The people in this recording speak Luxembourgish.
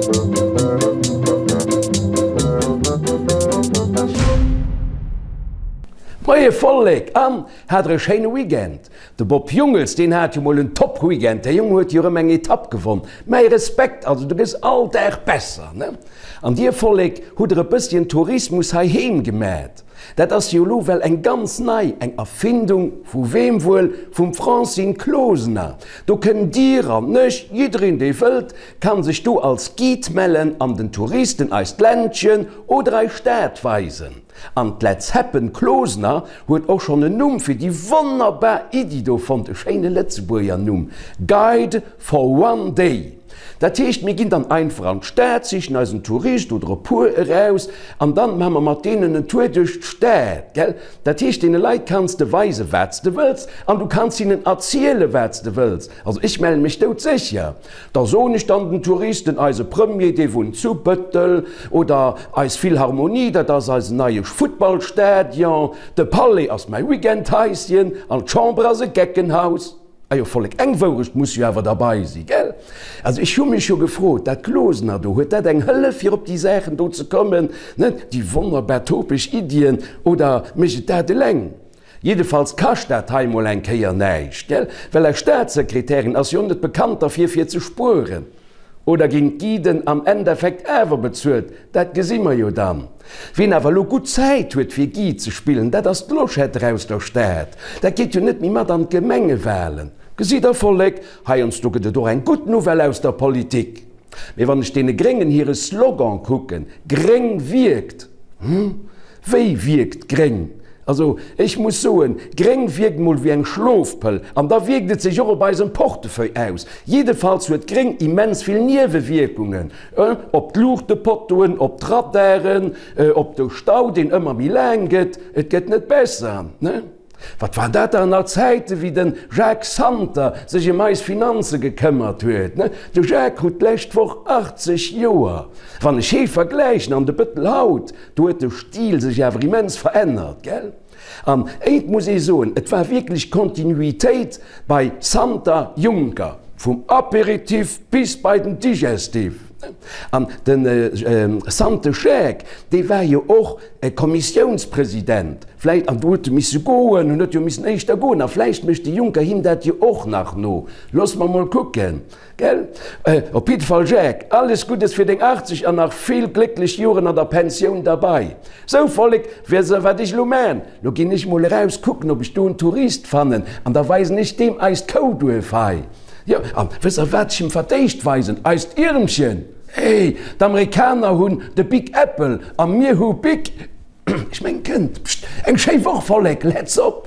Moie Vollek an hat der e schéine Weekend? De Bob Jungels deen hat jo mol en top Weekend, dee Jong huet jo rëm eng Etapp gewonn. Mäi Respekt, also du gëss all Dag besser ne? An dir Vollek hutt der e bësschen Tourismus heiheem gemat. Dat ass jo elo well eng ganz nei, eng Erfindung, vu weem wuel? Vum Francine Closener. Do kënnt dir an ech, jiddereen dee wëllt, kann sech do als Guide mellen an den Touristen eist Ländchen oder eis Stad weisen. An d'Letz Happen Closener huet och schonn en Numm fir déi wonnerbar Iddi do fonnt, e schéine Lëtzebuerger Numm, Guide for one day. Dat heescht, mir ginn dann einfach an d'Stad, sichen eis en Tourist oder e puer eraus an dann maache mer mat deenen en Tour duerch d'Stad, gell? Dat heescht, deene Leit kanns de weisen, wat s de wëlls an du kanns hinnen erzielen, wat s de wëlls. Also ech mellen mech doudsécher. Da soen ech dann den Touristen, eise Premier, dee wunnt zu Bëttel, oder eis Philharmonie, dat ass eisen neie Futtballstadion, de Palais ass mäi Weekendhaischen an d'Chamber ass e Geckenhaus. Ajo Vollek, eng Wourecht muss jo awer derbei si, gell? Also ech hu mech jo gefrot, dat Closener do, huet dat eng Hëllef fir op déi Saachen do ze kommen, net, déi wonnerbar topesch Iddien, oder mécht et dat eleng? Jiddefalls kascht dat hei mol eng Kéier näischt, gell? Well eis Staatssekretärin ass jo net bekannt derfir fir ze spueren. Oder ginn d'Guiden am Endeffekt awer bezuelt? Dat gesi mer jo dann. Wien awer elo gutt Zäit huet fir Guide ze spillen, dat ass d'Loschette aus der Stad. Dat geet jo net méi mat an d'Gemengewalen. Gesitt der Vollek, heiansdo gëtt et och eng gutt Nouvelle aus der Politik. Mee wann ech deene Gréngen hire Slogan kucken, Gréng wierkt, hm, wéi wierkt gréng? Also ech muss soen, gréng wierkt mol wéi eng Schlofpëll an da wierkt et sech och op eisem Portefeuille aus. Jiddefalls huet gréng immens vill Niewewierkungen, op d'Luuchtepottoen, op d'Radaren, op de Stau deen ëmmer méi laang gëtt. Et gëtt net besser, ne? Wat waren dat dann nach Zäiten, wéi de Jacques Santer sech ëm eis Finanze gekëmmert huet, ne? De Jacques krut d'lescht Woch 80 Joer. Wann ech hee vergläichen an de Bëttel haut, Do huet de Stil sech awer immens verännert, gell? An eent muss ee soen, et war wierklech Kontinuitéit bei Santer Juncker, vum Apéritif bis bei den Digestif. An de Sante Jacques, dee war jo och Kommissiounspresident, vläicht, an do huet e misse goen, en huet jo missen éischter goen, a vläicht mécht de Juncker him dat jo och nach no. Loosse mer mol kucken. Gell? Op jidde Fall Jacques, alles Guddes fir deng 80 an nach vill glécklech Joren an der Pensioun derbei. Sou Vollek, weess der wat ech lo maan? Lo ginn ech mol eraus kucken ob ech do en Tourist fannen an da weisen ech deem eist Kouduerf hei. Jo, an wësst der wat ech him verdéischt weisen? Eist Iermchen! Hey, d'Amerikaner hunn de Big Apple a mir hu Big. Ech mengen kënnt. Pscht, eng schéi Woch Vollek, let's op!